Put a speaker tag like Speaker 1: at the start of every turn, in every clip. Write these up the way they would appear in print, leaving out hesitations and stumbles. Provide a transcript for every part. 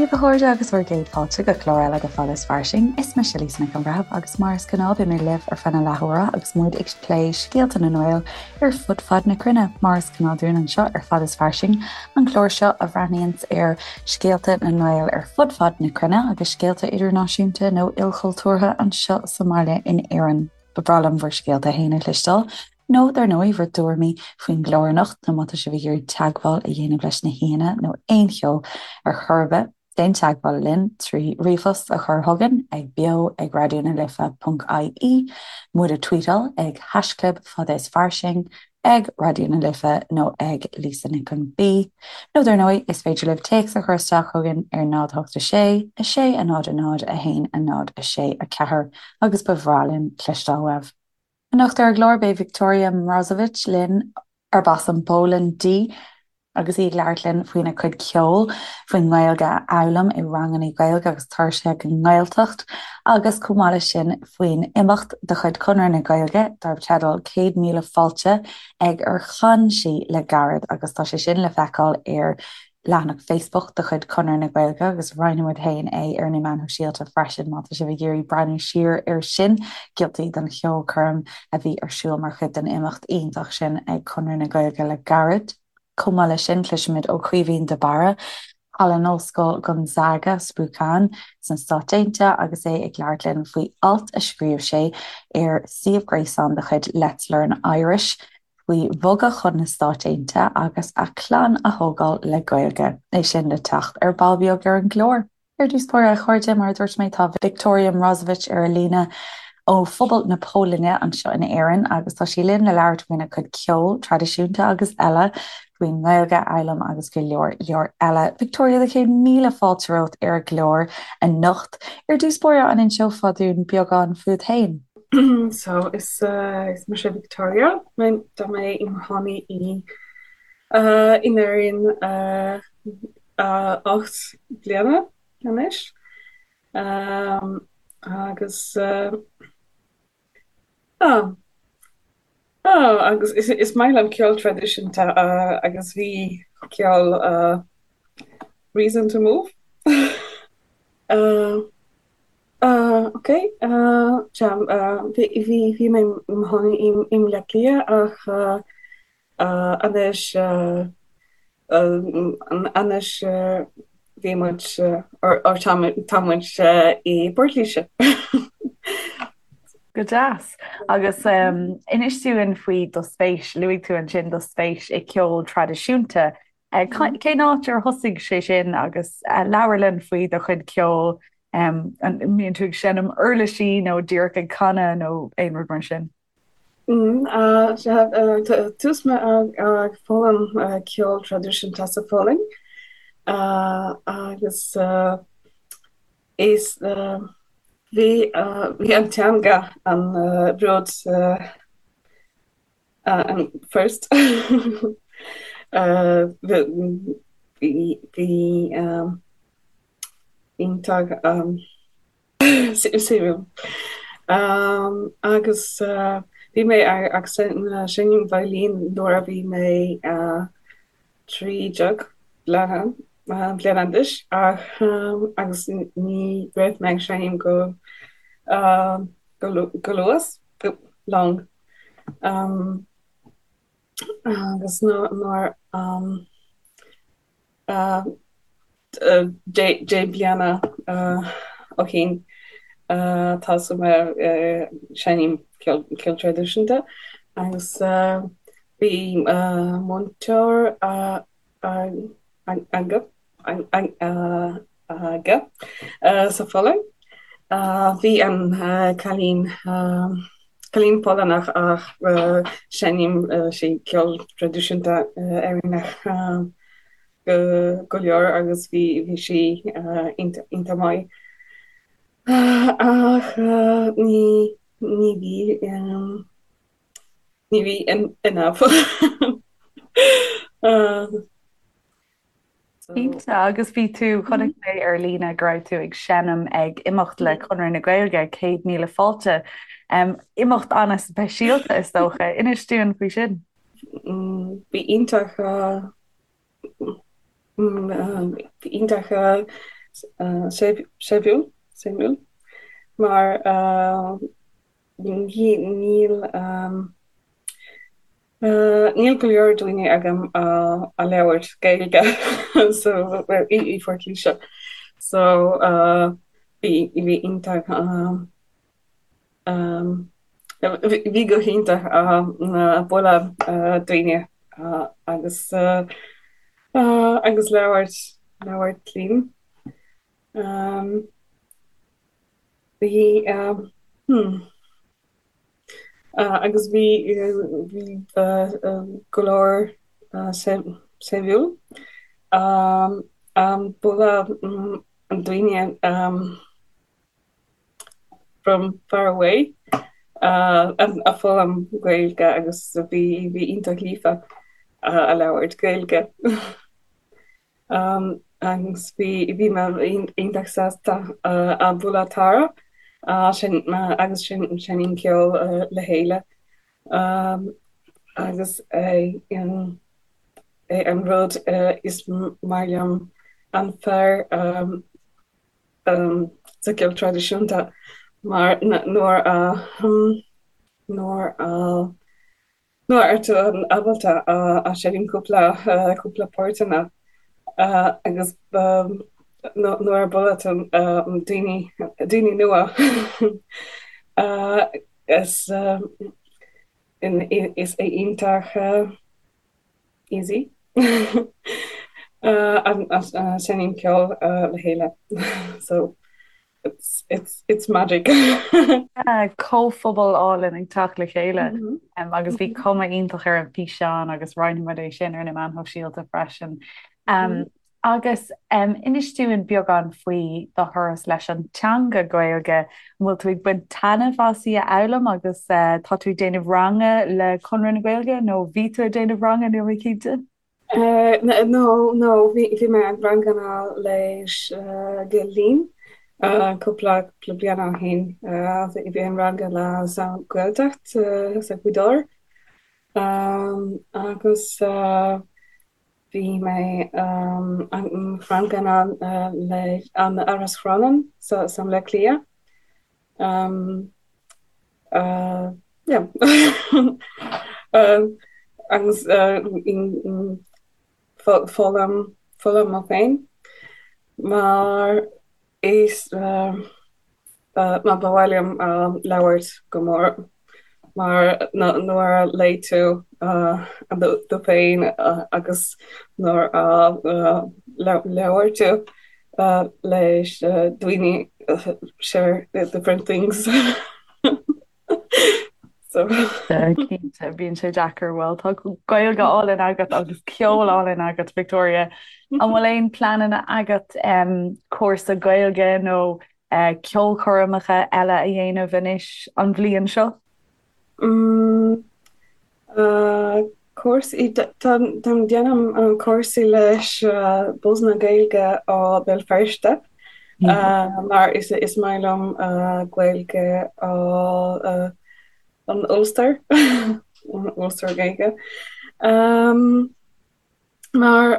Speaker 1: daoibh a chairde agus bhur gcéad fáilte go clár eile de Fada is Fairsing. Is mise Lisa Nic an Bhreithimh agus mar is gnáth beidh mé libh ar feadh na leathuaire agus muid ag plé scéalta na nGael ar fud fad na cruinne, mar is gnáth dúinn anseo ar Fada is Fairsing, an clár seo a bhreathnaíonns ar scéalta na nGael ar fud fad na cruinne agus scéalta idirnáisiúnta nó ilchultúrtha anseo sa mbaile in Éirinn. Ba bhreá liom bhur scéalta féin a chloisteáil, nó dar ndóigh bhur dtuairimí faoin gclár anocht nó má tá sibh ag iarraidh teagmháil a dhéanamh leis na haíonna nó aon cheo ar chor ar bith, déan teagmháil linn trí ríomhphost a chur chugainn ag beo ag raidió na life ponc ie, muid a tweetáil ag haischlib fada is fairsing, ag Raidió na Life nó ag Lisa Nic an B. Nó dar ndóigh, is féidir libh téacs a chur isteach chugainn ar 0 8 6 6 0 0 1 0 6 4 agus ba bhreá linn cloisteáil uaibh. Anocht ar an gclár beidh Wiktoria Mrozowicz linn, arb as an bPólainn di, Agus í ag labhairt linn faoina cuid ceoil, faoin nGaeilge a fhoghlaim i ranganna Gaeilge agus turais chuig an nGaeltacht, agus chomh maith leis sin faoin imeacht de chuid Chonradh na Gaeilge darb teideal 100,000 Fáilte ag ar chan sí le gairid agus tá sé sin le feiceáil ar leathanach Facebook de chuid Chonradh na Gaeilge agus roinnfidh muid féin é ar na meáin shóisialta freisin má tá sibh ag iarraidh breathnú siar air sin, giotaí den cheolchoirm a bhí ar siúl mar chuid den imeacht iontach sin ag Conradh na Gaeilge le gairid. Chomh maith leis sin, cloisfimid ó Chaoimhín de Barra, thall in Ollscoil Gonzaga, Spokane, sna Stáit Aontaithe agus é ag labhairt linn faoi alt a scríobh sé ar suíomh gréasáin de chuid Let's Learn Irish faoi bhogadh chun na Stáit Aontaithe agus a chlann a thógáil le Gaeilge. É sin le teacht ar ball beag ar an gclár. Ar dtús báire, a chairde, mar a dúirt mé, tá Wiktoria Mrozowicz ar an líne ó phobal na Polainne anseo in Éirinn agus tá sí linn le labhairt faoina cuid ceoil traidisiúnta agus eile, faoin nGaeilge a fhoghlaim agus go leor leor eile. Wiktoria, do chéad míle fáilte romhat ar an gclár anocht. Ar dtús báire, an inseofá dúinn beagán fút féin?
Speaker 2: So, is mise Wiktoria. Tá mé i mo chónaí i in Éirinn 8 bliana anois agus agus is maith liom ceol traidisiúnta agus bhí ceol reason to move. Ok bhí mé i mo chónaí i mBaile Átha Cliath ach Anois, anois bhí muid, or tá muid i bPort Laoise.
Speaker 1: Go deas. Agus inis dúinn faoi do spéis, luaigh tú ansin do spéis i gceol traidisiúnta. Cén áit ar thosaigh sé sin agus labhair linn faoi do chuid ceoil, an mbíonn tú ag seinm uirlisí nó díreach ag canadh nó aon rud mar sin?
Speaker 2: Tús mé ag foghlaim ceol traidisiúnta sa Pholainn agus is bhí bhí an teanga an rud an first bhí bhí iontach Suimiúil. Agus bhí mé ag seinm veidhlín nuair a bhí mé 13 bliana bliana d'aois ach agus ní raibh mé ag seinm go go luas go long. Agus nuair 10 bliana ó shin thosaigh mé seinm ceol traidisiúnta agus bhí múinteoir aige sa Pholainn. Bhí an cailín cailín Polannach ach seinm sí ceol traidisiúnta Éireannach go leor agus bhí bhí sí iontach maith. Ach ní ní bhí ní bhí enough.
Speaker 1: Cinnte, agus bhí tú, chonaic mé ar líne go raibh tú ag seinm ag imeacht le Conradh na Gaeilge, 100,000 Fáilte. Imeacht an-speisialta is dócha. Inis dúinn faoi sin.
Speaker 2: Bhí iontach, bhí iontach. Séimhiúil, suimiúil, mar níl níl go leor daoine agam a labhairt Gaeilge so i Phort Laoise so bhí bhí iontach bhí go hiontach bualadh daoine agus agus labhairt labhairt linn. Bhí hmm agus bhí bhí go leor suimiúil bualadh daoine from far away a foghlaim Gaeilge agus bhí bhí iontach líofa a labhairt Gaeilge. Agus bhí bhí mé iontach sásta a bualadh Tara sin agus sin seinnim ceol le chéile agus é é an rud is maith liom an fear sa gceol traidisiúnta mar nuair a nuair a nuair atá tú ábalta a seinm cúpla cúpla páirteanna agus nuair a bualadh tú daoine daoine nua is is é iontach easy seinm ceol le chéile so it's it's it's magic.
Speaker 1: Comhphobal álainn ag teacht le chéile agus bhí cuma iontach ar an bhfíseán agus roinnfimid é sin ar na meáin shóisialta freisin. Agus inis dúinn beagán faoi do thuras leis an teanga Gaeilge. An bhfuil tú ag baint taitneamh as í a fhoghlaim agus tá tú ag déanamh ranga le Conradh na Gaeilge nó bhí tú ag déanamh ranga, níl mé cinnte?
Speaker 2: No, no, bhí mé ag ranganna leis Gael Linn cúpla bliain ó shin. Bhí an ranga le sa Ghaeltacht sa Ghaoth Dobhair agus Bhí mé ranganna le an Áras Chrónáin sa mBaile Átha Cliath. Yeah. Agus foghlaim foghlaim mé féin mar is Mar ba mhaith liom labhairt go mór mar nuair a léigh tú tú féin agus nuair a labhair tú leis daoine share different things.
Speaker 1: So. Cinnte, bíonn sé deacair. Bhuel, tá Gaeilge álainn agat agus ceol álainn agat, Victoria. An bhfuil aon pleananna agat cúrsa Gaeilge nó ceolchoirmeacha eile a dhéanamh anois an bhliain seo?
Speaker 2: Cúrsaí, táim déanamh cúrsaí leis Buzz na Gaeilge ó Béal Feirste mar is is maith liom Gaeilge ó an Ulster, an Ulster Gaeilge. Mar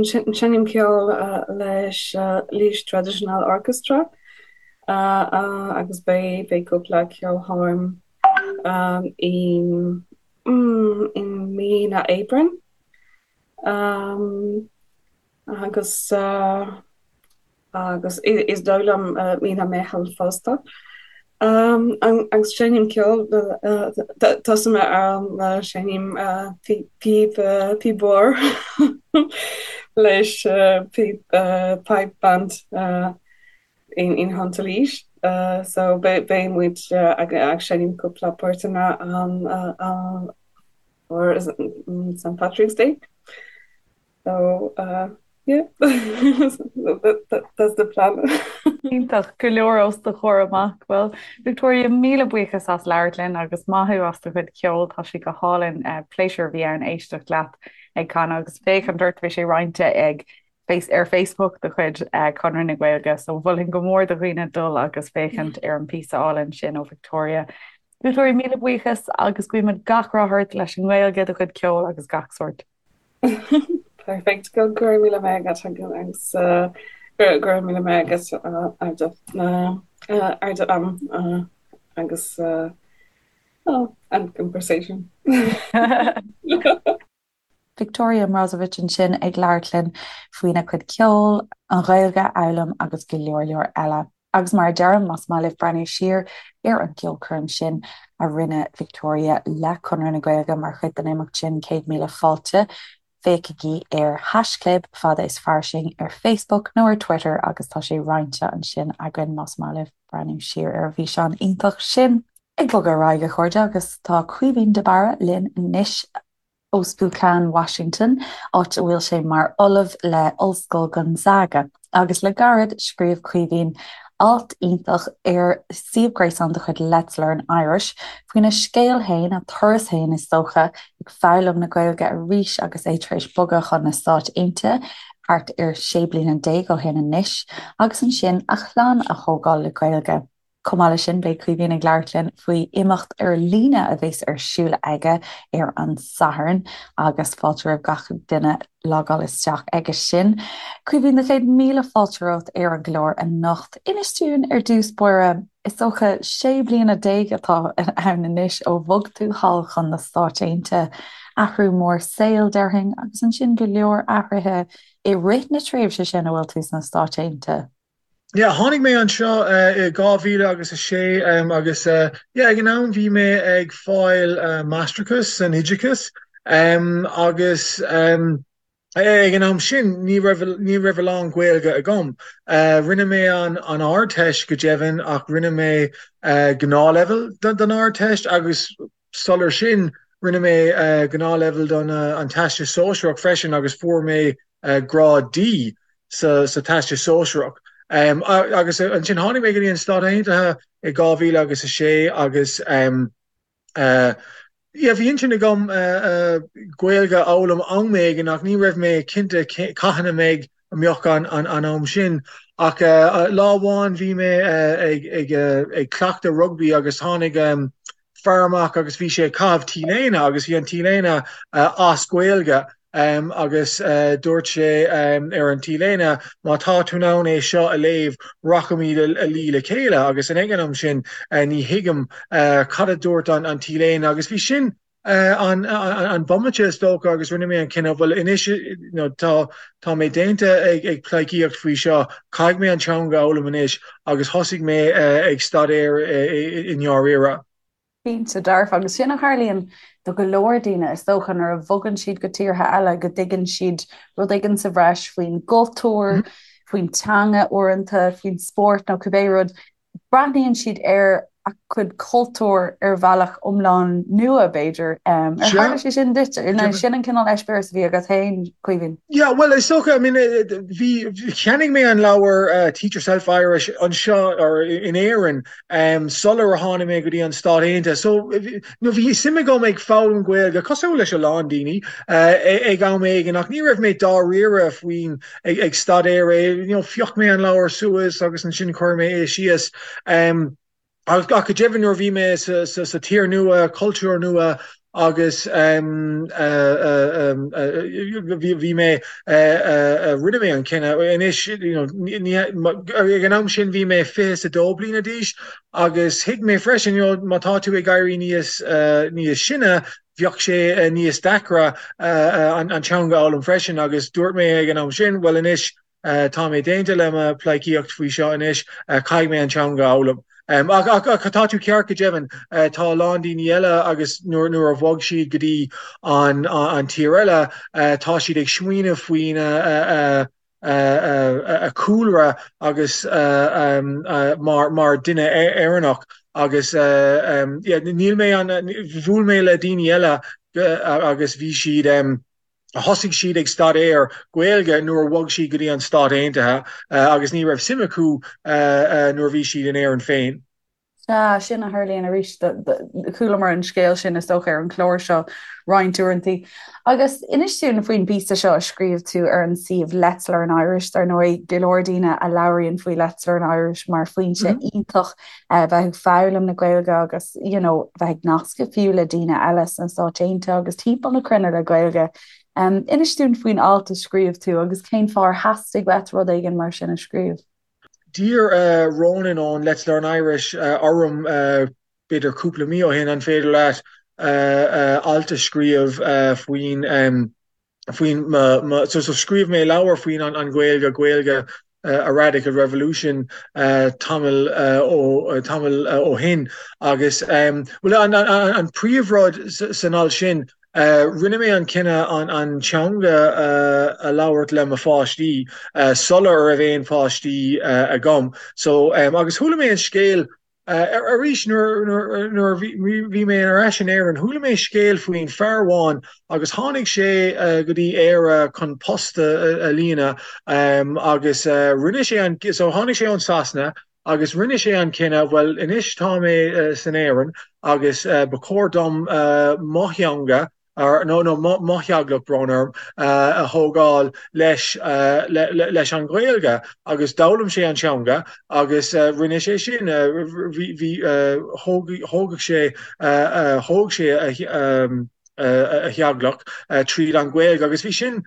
Speaker 2: seinnim ceol leis Laois Traditional Orchestra agus beidh beidh cúpla ceolchoirm i i mí na Aibreán agus agus is dóigh liom mí na Meitheamh fosta. Agus seinnim ceol, tosaigh mé ar seinnim píb píb mhór leis píb pipe band in in Hunt Laois. So beidh muid ag seinm cúpla páirteanna an or St Patrick's Day. So yeah, that's the plan.
Speaker 1: Iontach, go leor os do chomhair amach. Bhuel, Victoria, míle buíochas as labhairt linn agus maith thú as do chuid ceoil, tá sé go hálainn. Pléisiúr a bhí ann éisteacht leat ag canadh agus féachaint ort, bhí sé roinnte ag ar Facebook de chuid Conradh na Gaeilge, so mholfainn go mór do dhaoine dul agus féachaint ar an bpíosa álainn sin ó Victoria. Victoria, míle buíochas agus guímid gach rath ort leis an nGaeilge, do chuid ceoil agus gach sórt.
Speaker 2: Perfect. Go raibh míle maith agat agus. Go raibh míle maith agat ar do am agus an conversation.
Speaker 1: Victoria Mrozowicz ansin ag labhairt linn faoina cuid ceoil, an Ghaeilge a fhoghlaim agus go leor leor eile. Agus mar a deirim, más maith libh breathnú siar ar an gceolchoirm sin a rinne Victoria le Conradh na Gaeilge mar chuid den imeacht sin 100,000 Fáilte, féachaigí ar haischlib fada is fairsing ar Facebook nó ar Twitter agus tá sé roinnte ansin againn más maith libh breathnú siar ar an bhfíseán iontach sin. Ag bogadh ar aghaidh, a chairde, agus tá Caoimhín de Barra linn anois. ó Spokane, Washington, áit a bhfuil sé mar ollamh le Ollscoil Gonzaga, agus le gairid scríobh Caoimhín alt iontach ar suíomh gréasáin de chuid Let's Learn Irish faoina scéal féin, a turas féin is dócha, ag foghlaim na Gaeilge arís agus é tar éis bogadh chun na Stáit Aontaithe thart ar 16 bliana ó shin anois, agus ansin a chlann a thógáil le Gaeilge. Chomh maith leis sin, beidh Caoimhín ag labhairt linn faoi imeacht ar líne a bheas ar siúl aige ar an Satharn agus fáilte roimh gach duine logáil isteach aige sin. Caoimhín, do chéad míle fáilte romhat ar an gclár anocht. Inis dúinn ar dtús báire, is dócha 16 bliana atá ann anois ó bhog tú thall chun na Stáit Aontaithe, athrú mór saoil, déarfainn, agus ansin go leor athruithe i rith na tréimhse sin a bhfuil tú sna Stáit Aontaithe.
Speaker 3: Yeah, tháinig mé anseo i 2000 agus a sé agus yeah, ag an am bhí mé ag fáil máistreachas san oideachas agus ag an am sin ní raibh ní raibh a lán Gaeilge agam. Rinne mé an an Ardteist go deimhin ach rinne mé gnáthleibhéal don Ardteist agus sular sin rinne mé gnáthleibhéal don an Teastas Sóisearach freisin agus fuair mé grád D sa Teastas Sóisearach. Agus ansin tháinig mé go dtí an Stáit Aontaithe i 2000 agus a sé agus yeah bhí intinn agam Gaeilge a fhoghlaim am éigin ach ní raibh mé cinnte cathain a mbeidh a mbeadh an am sin. Ach lá amháin bhí mé ag cleachtadh rugbaí agus tháinig fear amach agus bhí sé ag caitheamh T-léine agus bhí an T-léine as Gaeilge agus dúirt sé ar an T-léine má tá tú in ann é seo a léamh rachaimid a luí le chéile agus ag an am sin ní thuigim cad a dúirt an T-léine agus bhí sin an bomaite is dócha agus rinne mé an cinneadh bhuel anois tá tá mé déanta ag ag pleidhcíocht faoi seo caithfidh mé an teanga a fhoghlaim anois agus thosaigh mé ag staidéar i ndáiríre.
Speaker 1: Cinnte dearfa, agus sin a tharlaíonn do go leor daoine is dócha nuair a bhogann siad go tíortha eile go dtuigeann siad rud éigin sa bhreis faoin gcultúr, faoin teanga uaireanta, faoin spórt nó cibé rud. Breathnaíonn siad ar a gcuid cultúr ar bhealach iomlán nua, b'fhéidir. Ar tharla sé sin duit? Nó sin an cineál eispéireas a bhí agat féin, Caoimhín?
Speaker 3: Yeah, bhuel, is dócha, I mean, bhí, cheannaigh mé an leabhar Teach Yourself Irish anseo, or in Éirinn, sular a tháinig mé go dtí an Stát Aontaithe. So, nó bhí suim agam ag foghlaim Gaeilge, cosúil leis a lán daoine, ag am éigin, ach ní raibh mé dáiríre faoin ag staidéar é, you know, phioc mé an leabhar suas agus ansin chuir mé é síos. Ach go deimhin nuair a bhí mé sa tír nua, cultúr nua agus bhí mé, rinne mé an cinneadh anois, you know, ag an am sin bhí mé 22 bliana d'aois agus thuig mé freisin, you know, má tá tú ag éirí níos níos sine, bheadh sé níos deacra an teanga a fhoghlaim freisin agus dúirt mé ag an am sin, bhuel anois tá mé déanta le mo pleidhcíocht faoi seo anois, caithfidh mé an teanga a fhoghlaim. Ach tá tú ceart go deimhin, tá a lán daoine eile agus nuair a bhog siad go dtí an tír eile, tá siad ag smaoineamh faoina a cúlra agus mar duine Éireannach agus níl mé an bhuail mé le daoine eile agus bhí siad thosaigh siad ag staidéar Gaeilge nuair a bhog siad go dtí an Stát Aontaithe agus ní raibh suim acu nuair a bhí siad in Éirinn féin.
Speaker 1: Sea, sin a tharlaíonn arís. Chualamar an scéal sin, is dócha, ar an chlár seo roinnt uaireanta. Agus inis dúinn faoin bpíosa seo a scríobh tú ar an suíomh Let's Learn Irish. Dar ndóigh, go leor daoine a labhraíonn faoi Let's Learn Irish mar foinse iontach bheith ag foghlaim na Gaeilge agus you know bheith ag nascadh fiú le daoine eile sna Stáit Aontaithe agus timpeall na cruinne le Gaeilge. Inis dúinn faoin alt a scríobh tú agus cén fáth ar theastaigh uait rud éigin mar sin a scríobh.
Speaker 3: D'iarr Ronan ón Let's Learn Irish orm b'fhéidir cúpla mí ó shin an féidir leat alt a scríobh faoin faoin mo so so scríobh mé leabhar faoin an an Ghaeilge Gaeilge a Radical Revolution tamall ó tamall ó shin agus bhuel an an an príomhrud san alt sin rinne mé an cinneadh an an teanga a labhairt le mo pháistí sula raibh aon pháistí agam so agus chuala mé an scéal Arís, nuair a bhí mé ar ais in Éirinn, chuala mé scéal faoin fear amháin agus tháinig sé go dtí Éire chun post a líonadh agus rinne sé an, so tháinig sé ón Sasana agus rinne sé an cinneadh, bhuel anois tá mé san Éirinn agus ba chóir dom mo theanga nó nó mo theaghlach, brón orm, a thógáil leis leis an Ghaeilge agus d'fhoghlaim sé an teanga agus rinne sé sin, bhí bhí thóg thógadh sé thóg sé a theaghlach tríd an Ghaeilge agus bhí sin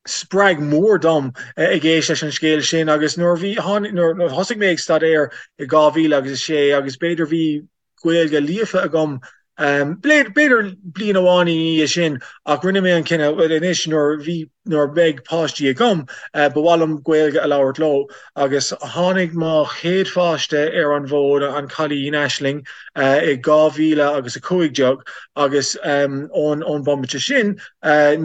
Speaker 3: spreag mór dom ag éist leis an scéal sin agus nuair a bhí nuair a thosaigh mé ag staidéar i 2000 agus 6 agus b'fhéidir bhí Gaeilge líofa agam b'fhéidir bliain amháin ina dhiaidh sin ach rinne mé an cinneadh bhuel anois nuair bhí nuair beidh páistí agam ba mhaith liom Gaeilge a labhairt leo agus tháinig mo chéad pháiste ar an bhfód an cailín Aisling i 2000 agus 15 agus ón ón bomaite sin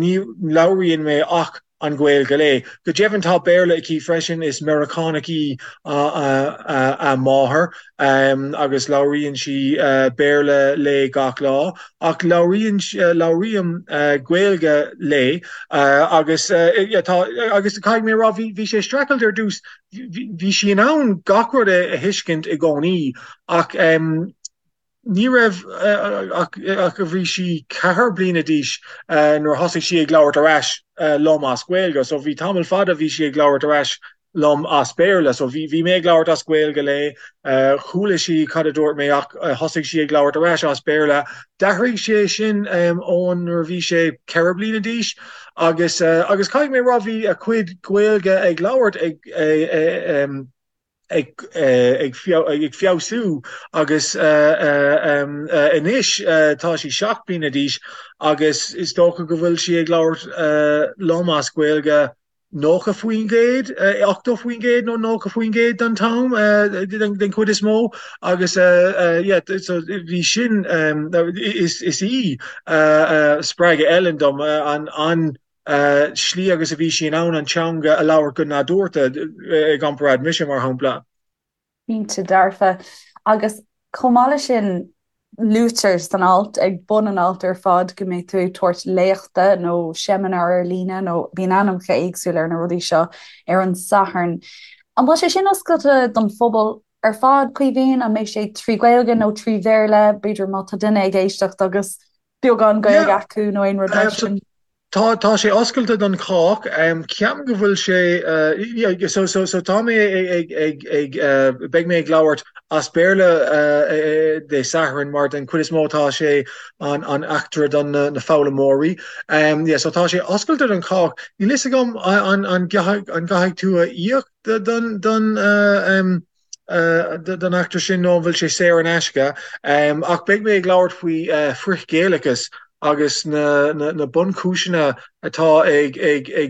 Speaker 3: Ní labhraíonn mé ach an Ghaeilge léi. Go deimhin tá Béarla aici freisin, is Meiriceánach í a máthair agus labhraíonn sí Béarla léi gach lá. Ach labhraíonn, labhraím Gaeilge léi agus tá, agus caithfidh mé a rá, bhí sé streachailt ar dtús, bhí sí in ann gach rud a thuiscint i gcónaí ach Ní raibh ach bhí sí 4 bliana d'aois nuair a thosaigh sí ag labhairt ar ais liom as Gaeilge. So bhí tamall fada bhí sí ag labhairt ar ais liom as Béarla. So bhí bhí mé ag labhairt as Gaeilge léi, chuala sí cad a dúirt mé ach thosaigh sí ag labhairt ar ais as Béarla. D'athraigh sé sin ón nuair a bhí sé 4 bliana d'aois agus agus caithfidh mé a rá bhí a cuid Gaeilge ag labhairt ag ag feabhsú agus anois tá sí 7 bliana d'aois agus is dócha go bhfuil sí ag labhairt liom as Gaeilge 90%, 80% nó 90% den t-am den chuid is mó agus yeah so bhí sin is í spreagadh Ellen dom an slí agus a bhí sí in ann an teanga a labhairt go nádúrtha i gcomparáid mise, mar shampla.
Speaker 1: Cinnte dearfa. Agus chomh maith leis sin, luaitear san alt, ag bun an ailt ar fad, go mbeidh tú ag tabhairt léachta nó seimineár ar líne nó bíonn ainmneacha éagsúla ar na rudaí seo ar an Satharn. An bhfuil sé sin oscailte don phobal ar fad, Caoimhín? An mbeidh sé trí Ghaeilge nó trí Bhéarla? B'fhéidir má tá duine ag éisteacht agus beagán Gaeilge acu nó aon rud mar sin.
Speaker 3: Tá tá sé oscailte don chách. Ceapaim go bhfuil sé so so so tá mé ag ag ag beidh mé ag labhairt as Béarla Dé Sathairn mar den chuid is mó tá sé an an eachtra don na na foghlaimeoirí. Yeah so tá sé oscailte don chách. Níl fhios agam an an an gcaithfidh tú a íoc don don don eachtra sin nó an bhfuil sé saor in aisce. Ach beidh mé ag labhairt faoi frith-Ghaelachas agus na bunchúiseanna atá ag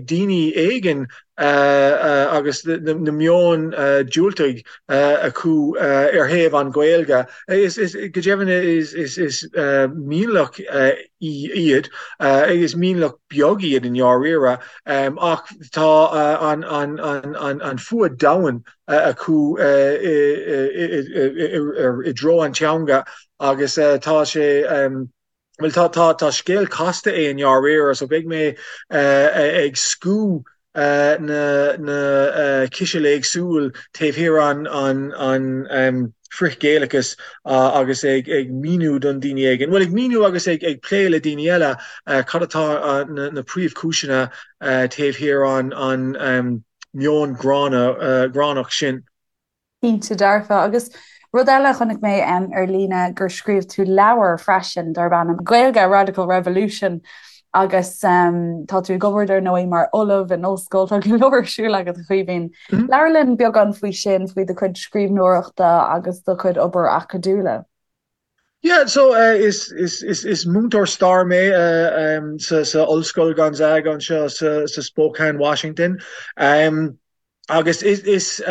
Speaker 3: daoine éigin agus na meoin diúltaigh acu ar thaobh an Ghaeilge. Go deimhin is mionlach iad, is mionlach beag iad i ndáiríre, ach tá an fuath domhain acu i dtreo an teanga agus tá sé bhuel tá tá tá scéal casta é i ndáiríre so beidh mé ag scú na na cisil éagsúil taobh thiar an an an frith-Ghaelachas agus ag ag míniú don daoine éigin, bhuel ag míniú agus ag ag plé le daoine eile cad atá na na príomhchúiseanna taobh thiar an an meon gránna, gránach sin.
Speaker 1: Cinnte dearfa. Agus rud eile a chonaic mé ar líne gur scríobh tú leabhar freisin darb ainm Gaeilge, A Radical Revolution. Agus tá tú ag obair dar ndóigh mar ollamh in ollscoil, tá go leor ar siúl agat a Chaoimhín. Labhair linn beagán faoi sin, faoi do chuid scríbhneoireachta agus do chuid obair acadúla.
Speaker 3: Yeah, so is is is is múinteoir stair mé sa sa Ollscoil Gonzaga anseo sa sa Spokane, Washington. Agus is is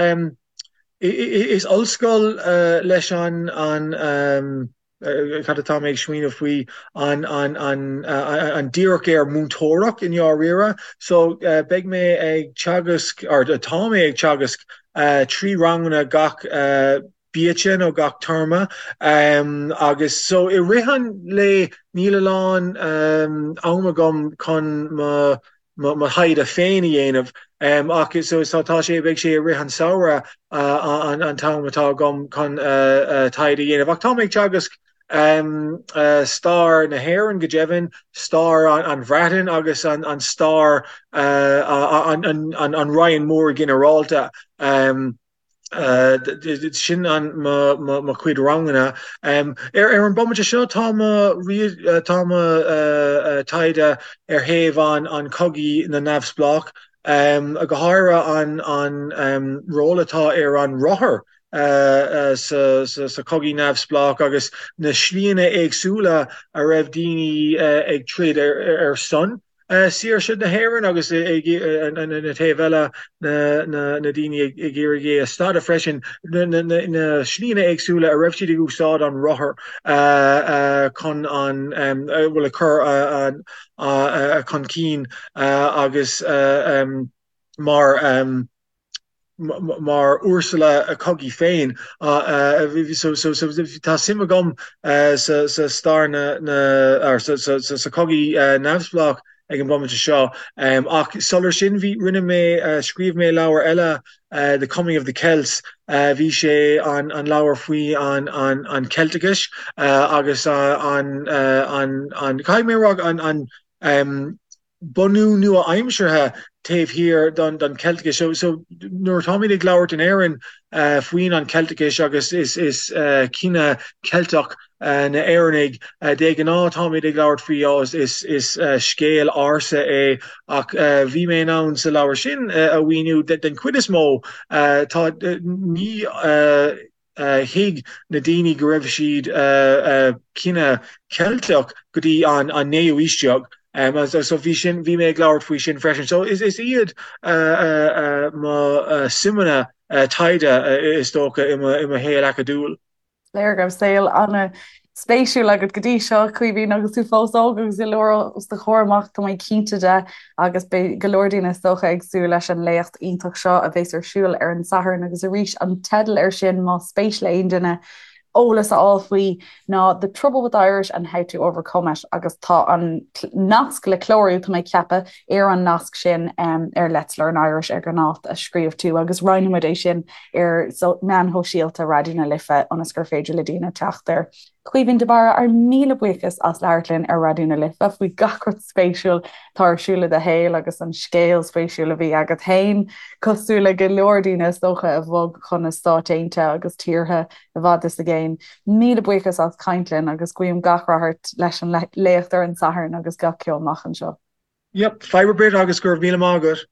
Speaker 3: is ollscoil leis an an cad atá mé ag smaoineamh faoi, an an an an díreach ar múinteoireacht i ndáiríre. So beidh mé ag teagasc, or tá mé ag teagasc 3 ranganna gach biaiste nó gach téarma agus so i rith an lae níl a lán am agam chun mo mo thaighde féin a dhéanamh ach so tá sé, beidh sé i rith an samhradh an t-am atá agam chun taighde a dhéanamh. Ach tá mé ag teagasc stair na hÉireann go deimhin, stair an Bhreatain agus an stair an Roinn Mór ginearálta. Sin an mo chuid ranganna. Ar an bomaite seo tá mo tá mo taighde ar thaobh an an chogaidh na neamhspleách, go háirithe an an ról atá ar an rothar sa sa chogaidh neamhspleách agus na slíanna éagsúla a raibh daoine ag troid ar son. saoirse na hÉireann agus ag an taobh eile na daoine ag iarraidh é a stadadh freisin, na slíanna éagsúla a raibh siad ag úsáid an rothar chun an, bhuel, a chur chun cinn agus mar. mar ursula cogaidh féin. So tá suim agam sa stair na sa chogaidh neamhspleách ag an bomaite seo. Ach sular sin bhí rinne mé scríobh mé leabhar eile The Coming of the Celts. Bhí sé an an leabhar faoi an an an Ceilteachais agus an an an caithfidh mé a rá an an bunú nua-aimseartha taobh thiar don Cheilteachas. So nuair atáimid ag labhairt in Éirinn faoin an Cheilteachas agus is is cine Ceilteach na Éireannaigh, de ghnáth táimid ag labhairt faoi oh is is scéal ársa é ach bhí mé in ann sa leabhar sin a mhíniú den chuid is mó tá ní thuig na daoine go raibh siad cine Ceilteach go dtí an naoú aois déag. So bhí sin, bhí mé ag labhairt faoi sin freisin. So is iad mo suimeanna taighde is dócha i mo shaol acadúil.
Speaker 1: Léir go raibh saol ana-spéisiúil agat go dtí seo, Caoimhín, agus tú fós óg agus go leor os do chomhair amach, tá mé cinnte de. Agus beidh go leor daoine is dócha ag súil leis an léacht iontach seo a bheas ar siúl ar an Satharn agus arís an teideal air sin más spéis le aon duine eolas a fháil faoi ná The Trouble with Irish and How to Overcome It agus tá an nasc le clárú, tá mé ag ceapadh, ar an nasc sin ar Let's Learn Irish ar an áit a scríobh tú agus roinnfidh muid é sin ar meáin shóisialta Raidió na Life ionas gur féidir le daoine teacht air. Caoimhín de Barra, ár míle buíochas as labhairt linn ar Raidió na Life faoi gach rud spéisiúil atá ar siúl i do shaol agus an scéal spéisiúil a bhí agat féin, cosúil le go leor daoine is dócha a bhog chun na Stáit Aontaithe agus tíortha i bhfad is i gcéin. Míle buíochas as caint linn agus guím gach rath ort leis an léacht ar an Satharn agus gach ceo amach anseo.
Speaker 3: Yep, fadhb ar bith agus go raibh míle maith agat.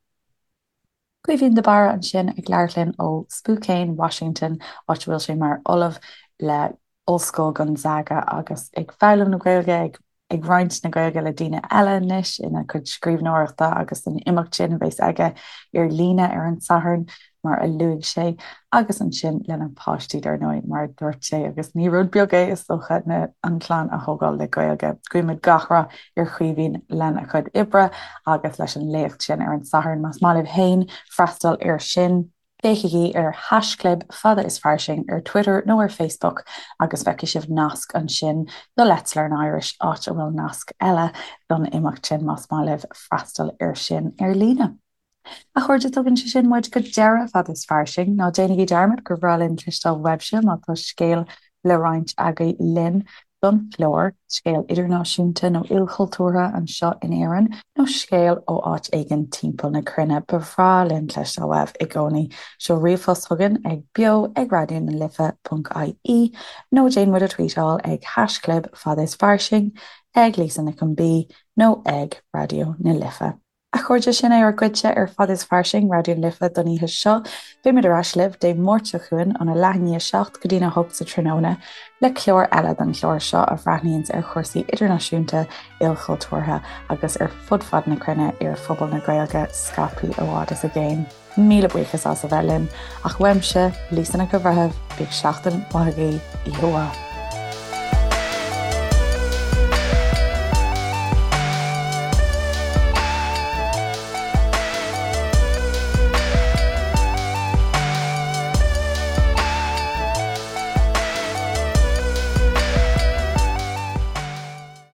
Speaker 1: Caoimhín de Barra ansin ag labhairt linn ó Spokane, Washington, áit a bhfuil sé mar ollamh le Ollscoil Gonzaga agus ag foghlaim na Gaeilge, ag ag roinnt na Gaeilge le daoine eile anois ina chuid scríbhneoireachta agus san imeacht sin a bheas aige ar líne ar an Satharn. mar a luaigh sé, agus ansin lena pháistí, dar ndóigh, mar a dúirt sé, agus ní rud beag é, is dócha, na, an chlann a thógáil le Gaeilge. Guímid gach rath ar Chaoimhín lena chuid oibre agus leis an léacht sin ar an Satharn. Más maith libh féin freastal air sin, féachaigí ar haischlib fada is fairsing ar Twitter nó ar Facebook agus feicfidh sibh nasc ansin do Let's Learn Irish, áit a bhfuil nasc eile don imeacht sin más maith libh freastal air sin ar líne. A chairde, tugann sé sin muid go deireadh Fada is Fairsing. Ná déanaigí dearmad gur bhreá linn cloisteáil uaibhse má tá scéal le roinnt agaibh linn don chlár, scéal idirnáisiúnta nó ilchultúrtha anseo in Éirinn nó scéal ó áit éigin timpeall na cruinne. Ba bhreá linn cloisteáil uaibh i gcónaí. Seol ríomhphost chugainn ag beo ag raidió na life ponc ie nó déan muid a tweetáil ag haischlib fada is fairsing. Ag Lisa Nic an B nó ag Raidió na Life. A chairde, sin é ár gcuidse ar Fad is Fairsing, Raidió na Life don oíche seo. Beimid ar ais libh Dé Máirt seo chugainn óna leath i ndiaidh a 7 go dtína 8 sa tráthnóna le clár eile den chlár seo a bhreathnaíonns ar chúrsaí idirnáisiúnta, ilchultúrtha agus ar fud fad na cruinne ar phobal na Gaeilge scaipthe i bhfad is i gcéin. Míle buíochas as a bheith linn, ach uaimse, Lisa Nic an Bhreithimh, bíodh seachtain mhaith agaibh, oíche mhaith.